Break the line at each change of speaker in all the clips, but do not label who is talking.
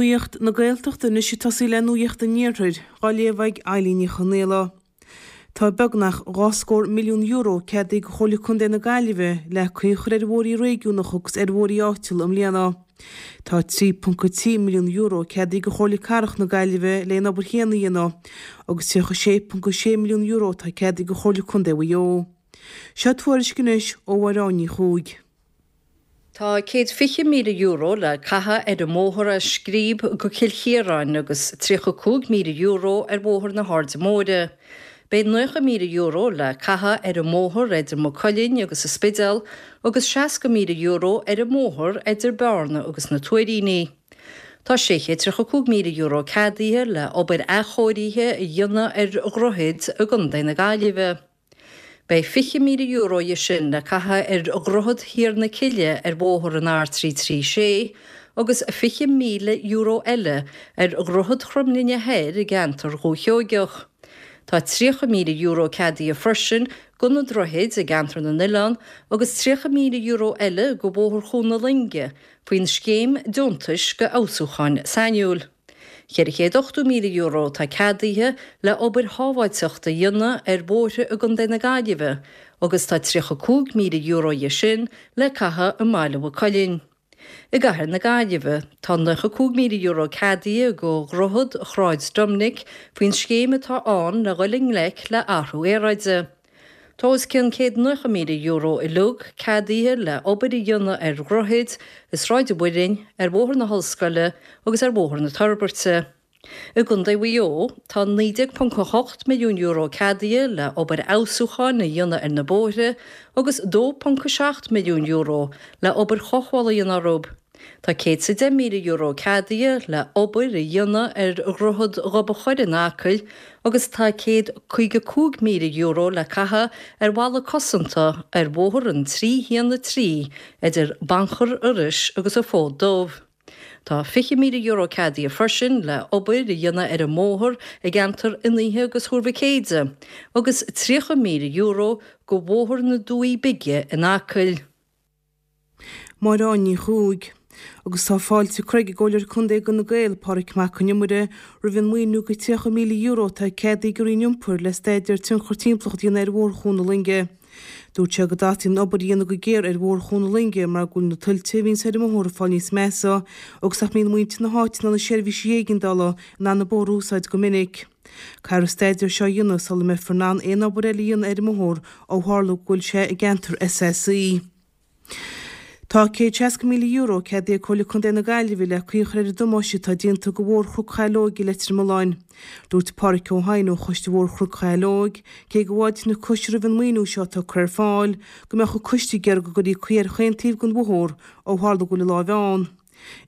Nuacht na Gaeltachta anois ag tosaí le Nuacht an Iarthair, á léamh ag Eilín Ní Chonaola. Tá beagnach €2 milliún ceadaithe ag Comhairle Contae na Gaillimhe le caoi a chur ar bhóithrí réigiúnacha agus ar bhóithrí áitiúla i mbliana. Tá €3.3 milliún ceadaithe ag Comhairle Cathrach na Gaillimhe le an obair chéanna a dhéanamh agus €36.6 milliún atá ceadaithe ag Comhairle Contae Mhaigh Eo. Seo tuairisc anois ó Mháire Ní Chuaig.
Tá €120,000 le caitheamh ar an mbóthar as Scríb go Cill Chiaráin agus €35,000 ar Bhóthar na hAirde Móire. Beidh €90,000 le caitheamh ar an mbóthar idir Maigh Cuilinn agus an Spidéal agus €60,000 ar an mbóthar idir Bearna agus na Tuairíní. Tá €635,000 ceadaithe le obair athchóirithe a dhéanamh ar dhroichid i gContae na Gaillimhe. Beidh €20,000 dhe sin le caitheamh ar Dhroichead Thiar na Cille ar bhóthar an R336 agus €20,000 eile ar Dhroichead Chromghlinne Thoir i gceantar Dhúiche Sheoigeach. Tá €30,000 ceadaithe freisin go na droichid i gceantar na nOileán agus €30,000 eile go Bhóthar Chuan na Loinge faoin scéim deontais go fheabhsúcháin sainiúil. €480,000 atá ceadaithe le obair shábháilteachta a dhéanamh ar bhóithre i gContae na Gaillimhe agus tá €35,000 dhe sin le caitheamh i mBaile Mhaigh Cuilinn. I gCathair na Gaillimhe, tá €95,000 ceadaithe go Dhroichead Shráid Doiminic faoin scéim atá ann le dhul i ngleic le athrú aeráide. Tá os cionn €190,000 uilig ceadaithe le obair a dhéanamh ar dhroichid i Sráid an Mhuirinn, ar Bhóthar na hOllscoile agus ar Bhóthar na Toirbeirte. I gContae Mhaigh Eo, tá €19.8 milliún ceadaithe le obair fheabhsúcháin a dhéanamh ar na bóithre agus €2.7 milliún le obair chothabhála a dhéanamh orthu. Tá €110,000 ceadaithe le obair a dhéanamh ar Dhroichead Ghob an Choire in Acaill agus tá €155,000 le caitheamh ar bhalla cosanta ar bhóthar an 313 idir Banchar Iorrais agus an Fód Dubh. Tá €20,000 ceadaithe freisin le obair a dhéanamh ar an mbóthar i gceantar Fhionnaithe agus Thuar Mhic Éide agus €30,000 go Bhóthar na Dumhaí Bige in Acaill.
Máire Ní Chuaig. Agus tá fáilte curtha ag an gComhairleoir Contae d'Fhine Gael, Pádraig Mac Con Iomaire, roimh an maoiniú de €30,000 atá ceadaithe ag an Roinn Iompair le staidéar tionchar timpeallachta a dhéanamh ar Bhóthar Chuan na Loinge. Dúirt sé go dteastaíonn an obair a dhéanamh go géar ar Bhóthar Chuan na Loinge mar go bhfuil na tuilte a bhíonns ar an mbóthar ag fáil níos measa agus nach mbíonn muintir na háite ná na seirbhísí éigeandála in ann an bóthar a úsáid go minic. Caithfear an staidéar seo a dhéanamh sula mbeifear in ann aon obair eile a dhéanamh ar an mbóthar ó tharla go bhfuil sé i gceantar SAC. Tá €160,000 ceadaithe ag Comhairle Contae na Gaillimhe le caoi a chur ar an damáiste atá déanta go Bhóthar Chnoc Shaileoige i Leitir Mealláin. Dúirt Páraic Ó hEidhin ó Choiste Bhóthar Chnoc Shaileoig, cé go bhfáiltíonn an coiste roimh an maoiniú seo atá curtha ar fáil, go mbeadh an coiste ag iarraidh go gcuirfí caoi ar chaon taobh den bhóthar ó tharla go bhfuil a láimh ann.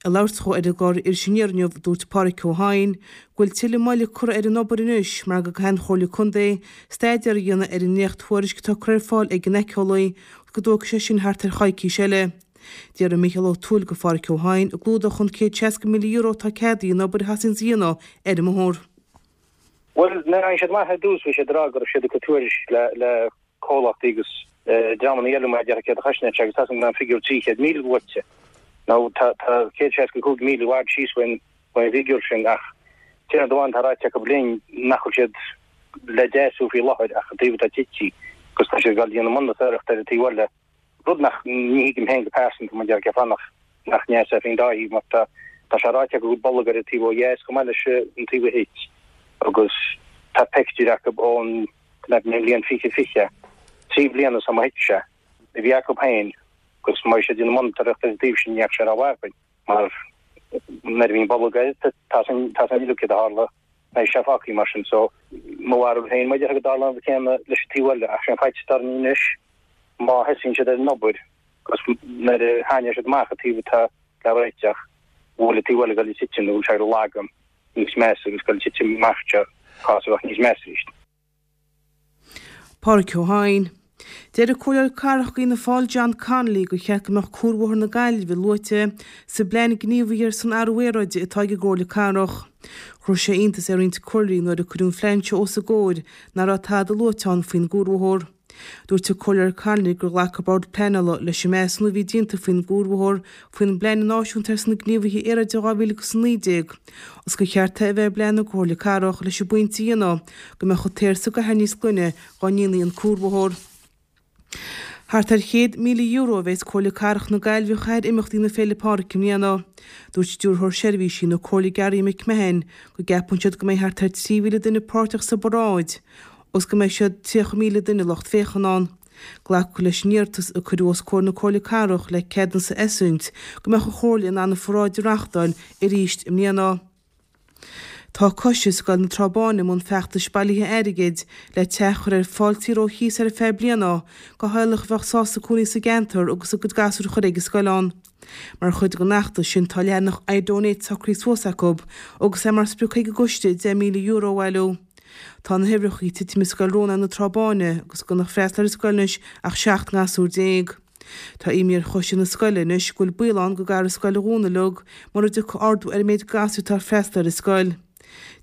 Ag labhairt dhó ar an gclár Iris Aniar inniu, dúirt Páraic Ó hEidhin go bhfuil tuilleadh moille curtha ar an obair anois mar go gcaithfidh an Chomhairle Contae staidéar a dhéanamh ar an ndréacht-thuairisc atá curtha ar fáil ag an éiceolaí agus go dtógfaidh sé sin thart ar choicís eile. D'fhiafraigh Mícheál Ó Tuathail de Pháraic Ó hEidhin an gclúdódh an €160,000 atá ceadaithe an obair a theastaíonns a dhéanamh ar an mbóthar.
Bhuel, nuair a tháinig siad amach ar dtús bhí siad ag rá go raibh siad ag cur tuairisc le comhlachtaí agus dreamanna eile mar a déarfá céard a chosnódh sé agus tá a fhios agam go raibh an figiúr 300,000 luaite. Now tá 165,000 i bhfad síos faoin bhfigiúr sin ach taobh amháin tá ráite acu linn nach bhfuil siad le deasú faoi láthair ach an taobh atá tite agus tá siad ag dul a dhéanamh monatóireacht ar an taobh eile rud nach ní thuigim féin go pearsanta mar a déarfá cén fáth nach nach ndeasófaí an dá thaobh mar tá tá sé ráite acu go bhfuil bolg ar an taobh ó dheas chomh maith leis an taobh a thit agus tá pictiúir acu ón mbliain 2020, 3 bliana ó thit sé, a bhí acu féin agus má bhí siad ag déanamh monatóireacht ar an taobh sin ní fheadh sé rómhaith againn mar nuair a bhíonn bolg air tá a fhios againn uilig céard a tharla beidh sé fágtha mar sin so mo bharúil féin mar a déarfá go dtarlóidh an rud céanna leis an taobh eile ach sé an faitíos atá orainn anois má thosaíonn siad ar an obair agus nuair a thaitneoidh siad amach an taobh atá le réiteach go bhfuil an taobh eile ag dul ag titim nó go bhfuil sé ag lagan níos measa agus ag dul ag titim amach seo cás a bheadh níos measa arís.
Pádraic Ó hEidhin. Deir an Comhairleoir Cathrach d'Fhianna Fáil John Connolly gur cheart go mbeadh Cuarbhóthar na Gaillimhe luaite sa bplean gníomhaithe ar son athrú aeráide atá ag an gComhairle Cathrach. Chuir sé iontas ar roinnt comhairleoirí nuair a cuireadh an phlean seo os a gcomhair nach raibh tada luaite ann faoin gcuarbhóthar. Dúirt an Comhairleoir Connolly gur ghlac an Bord Pleanála leis an measúnú a bhí déanta faoin gcuarbhóthar faoin bPlean Náisiúnta ar son na Gníomhaithe Aeráide 2019 agus gur cheart é a bheith i bplean na Comhairle Cathrach leis an bpointe a dhéanamh go mbeadh an t-aer sa gcathair níos glaine dá ndéanfaí an cuarbhóthar. Thart ar €100,000 a bheas Comhairle Cathrach na Gaillimhe a chaitheamh ar imeachtaí na Féile Pádraig i mbliana. Dúirt Stiúrthóir Seirbhísí na Comhairle Gary McMahon go gceapann siad go mbeidh thart ar 3,000 duine páirteach sa bparáid agus go mbeidh siad 30,000 duine lucht féachana ann. Glacadh leis an iarratas a cuireadh os comhair na Comhairle Cathrach le ceadúnas a eisiúint go mbeadh an Chomhairle in ann an pharáid a reáchtáil arís i mbliana. Tá Coiste Scoil na Trá Báine i mbun feachtais bailithe airgid le teach a chur ar fáil saor ó chíos ar feadh bliana do theaghlach a bheadh sásta cónaí sa gceantar agus a gcuid gasúr a chur ag an scoil ann. Mar chuid den fheachtas sin tá leathanach iDonate socraithe suas acu agus é mar sprioc ag an gcoiste €10,000 a bhailiú. Tá na huimhreacha ag titim i Scoil Rónáin na Trá Báine agus gan ag freastal ar an scoil anois ach 17 ngasúr. Tá imní ar choiste na scoile anois go bhfuil baol ann go gcaithfear an scoil a dhúnadh uilig mura dtiocfaidh ardú ar an méid gasúr atá ag freastal ar an scoil.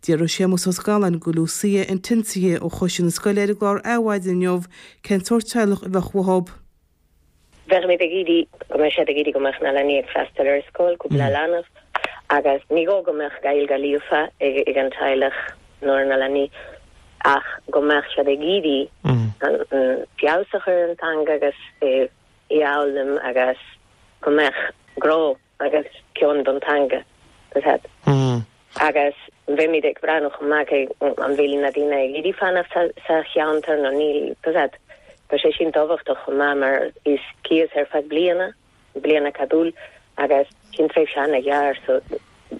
D'fhiafraigh Séamus Ó Scanláin go Lucia Antinsia ó choiste na scoile ar an gclár Adhmhaidin inniu cén sórt teaghlach a bheadh uathu.
Bheimid ag iarraidh go mbeadh siad ag iarraidh go mbeadh na leanaí ag freastal ar an scoil, cúpla leanbh, agus ní gá go mbeadh Gaeilge líofa ag an teaghlach nó ar na leanaí. ach go mbeadh siad ag iarraidh feabhas a chur ar an teanga agus í a fhoghlaim agus go mbeadh grá agus cion don teanga. Agus bheimid ag breathnú chomh maith cé an bhfuil na daoine ag iarraidh fanacht sa cheantar nó níl. Tá sé sin tábhachtach chomh maith mar is cíos ar feadh bliana. bliain acadúil agus sin tréimhse ana-ghearr so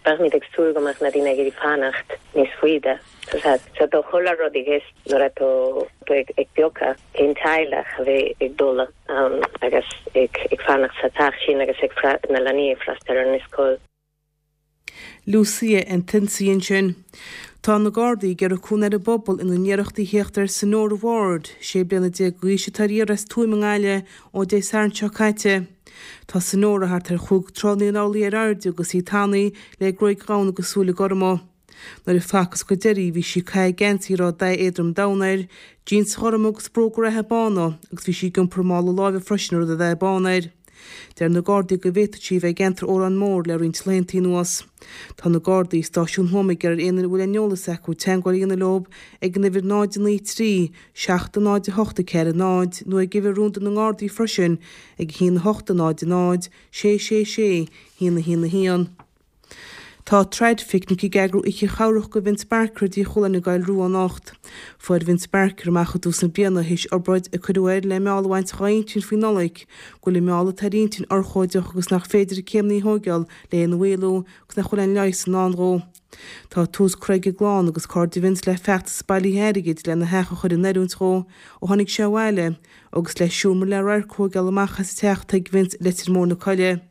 beimid ag súil go mbeadh na daoine ag iarraidh fanacht níos faide. So tá chuile rud i gceist nuair atá tú ag piocadh cén teaghlach a bheidh ag dul ann agus ag fanacht sa teach sin agus ag na leanaí ag freastal ar an scoil.
Lucia Antinsia ansin. Tá na Gardaí ag iarraidh cúnamh ar an bpobal ina n-iarrachtaí theacht ar Sonora Ward, 16 bliana d'aois atá ar iarraidh as Tuaim i nGaillimh ó Dé Sathairn seo caite. Tá Sonora thart ar chúig troigh naoi n-orlaí ar airde agus í tanaí le gruaig dhonn agus súile gorma. Nuair a facthas go deiridh í bhí sí ag caitheamh geansaí a raibh dath éadrom donn air, jíons ghorma agus bróga reatha bána agus bhí sí ag iompar mála láimhe freisin a raibh dath bán air. Deir na Gardaí go bhféadfadh sí a bheith i gceantar Órán Mór le roinnt laethanta anuas. Tá na Gardaí i Stáisiún Thuama ag iarraidh ar aon duine a bhfuil aon eolas acu teagmháil a dhéanamh leo ag an uimhir 0 9 3 7 0 8 4 0 nó ag uimhir rúnda na nGardaí freisin ag 1 8 0 0 6 6 6 1 1 1. Tá Traidphicnic ag eagrú oíche chabhrach go Vince Barker i dTí Chualáin i gCoill Rua anocht. Fuair Vince Barker amach i dtús na bliana, théis obráid a cuireadh air le meall a bhaint dhá intinn faoi Nollaig, go bhfuil an meall atá ar a intinn urchóideach agus nach féidir céimní a thóigeáil le hé a mhaolú agus nach bhfuil aon leigheas i ndán dhó. Tá tús curtha ag a gclann agus cairde Vince le feachtas bailithe airgid lena theach a chur in oiriúint dhó ó tháinig sé abhaile agus le seomra le radharc a thóigeáil amach as an teach atá ag Vince i Leitir Móir na Coille.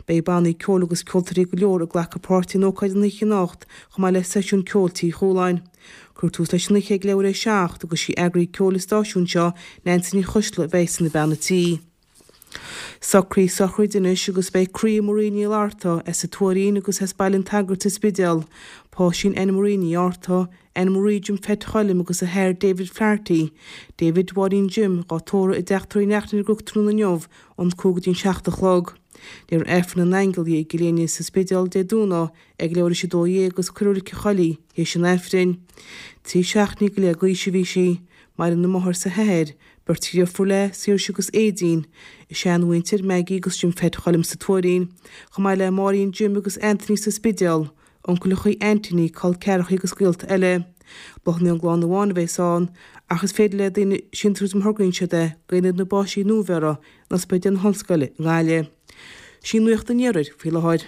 Beidh bannaí ceoil agus ceoltóirí go leor ag glacadh páirte in ócáid an oíche anocht chomh maith le seisiún ceoil Tí Chualáin. Cuirfear tús leis an oíche ag leathuair théis a 7 agus sí eagraí ceoil an stáisiúin seo, Neansaí Ní Choisdealbha a bheidh ina bean a tí. Socruithe sochraide anois agus beidh croí Marie Ní Fhlatharta as an Tuairín agus as Baile an tSagairt sa Spidéal, páistín Anne Marie Ní Fhátharta, Anne Marie Jim Pheait Choilm agus a hathair David Flaherty, David Mháirín Jim, dhá tórramh i dTeach Tórraimh Uí Neachtain ar an gCnoc tráthnóna inniu ón 5 go dtí an 7 a chlog. Léifear Aifreann na nAingeal di i gCill Éinne sa Spidéal Dé Domhnaigh ag leathuair théis 12 agus cuirfear i Reilig an Choilligh í théis an Aifrinn. 13 seachtainí go leith d'aois a bhí sí. Maireann a máthair 's a hathair, beirt dheirfiúr léi, Saoirse agus Aedín, a seanmhuintir, Maggie agus Jim Pheait Choilm sa Tuairín, chomh maith le Máirín Jim agus Anthony sa Spidéal, Uncaileachaí, aintíní, col ceathrachaí agus gaolta eile. Bláthanna ón gclann amháin a bheas ann, ach is féidir le daoine síntiús má thograíonn siad é go Aonad na bPáistí Nuabheirthe in Ospidéal na hOllscoile i nGaillimh. Sin nuacht an Iarthair faoi láthair.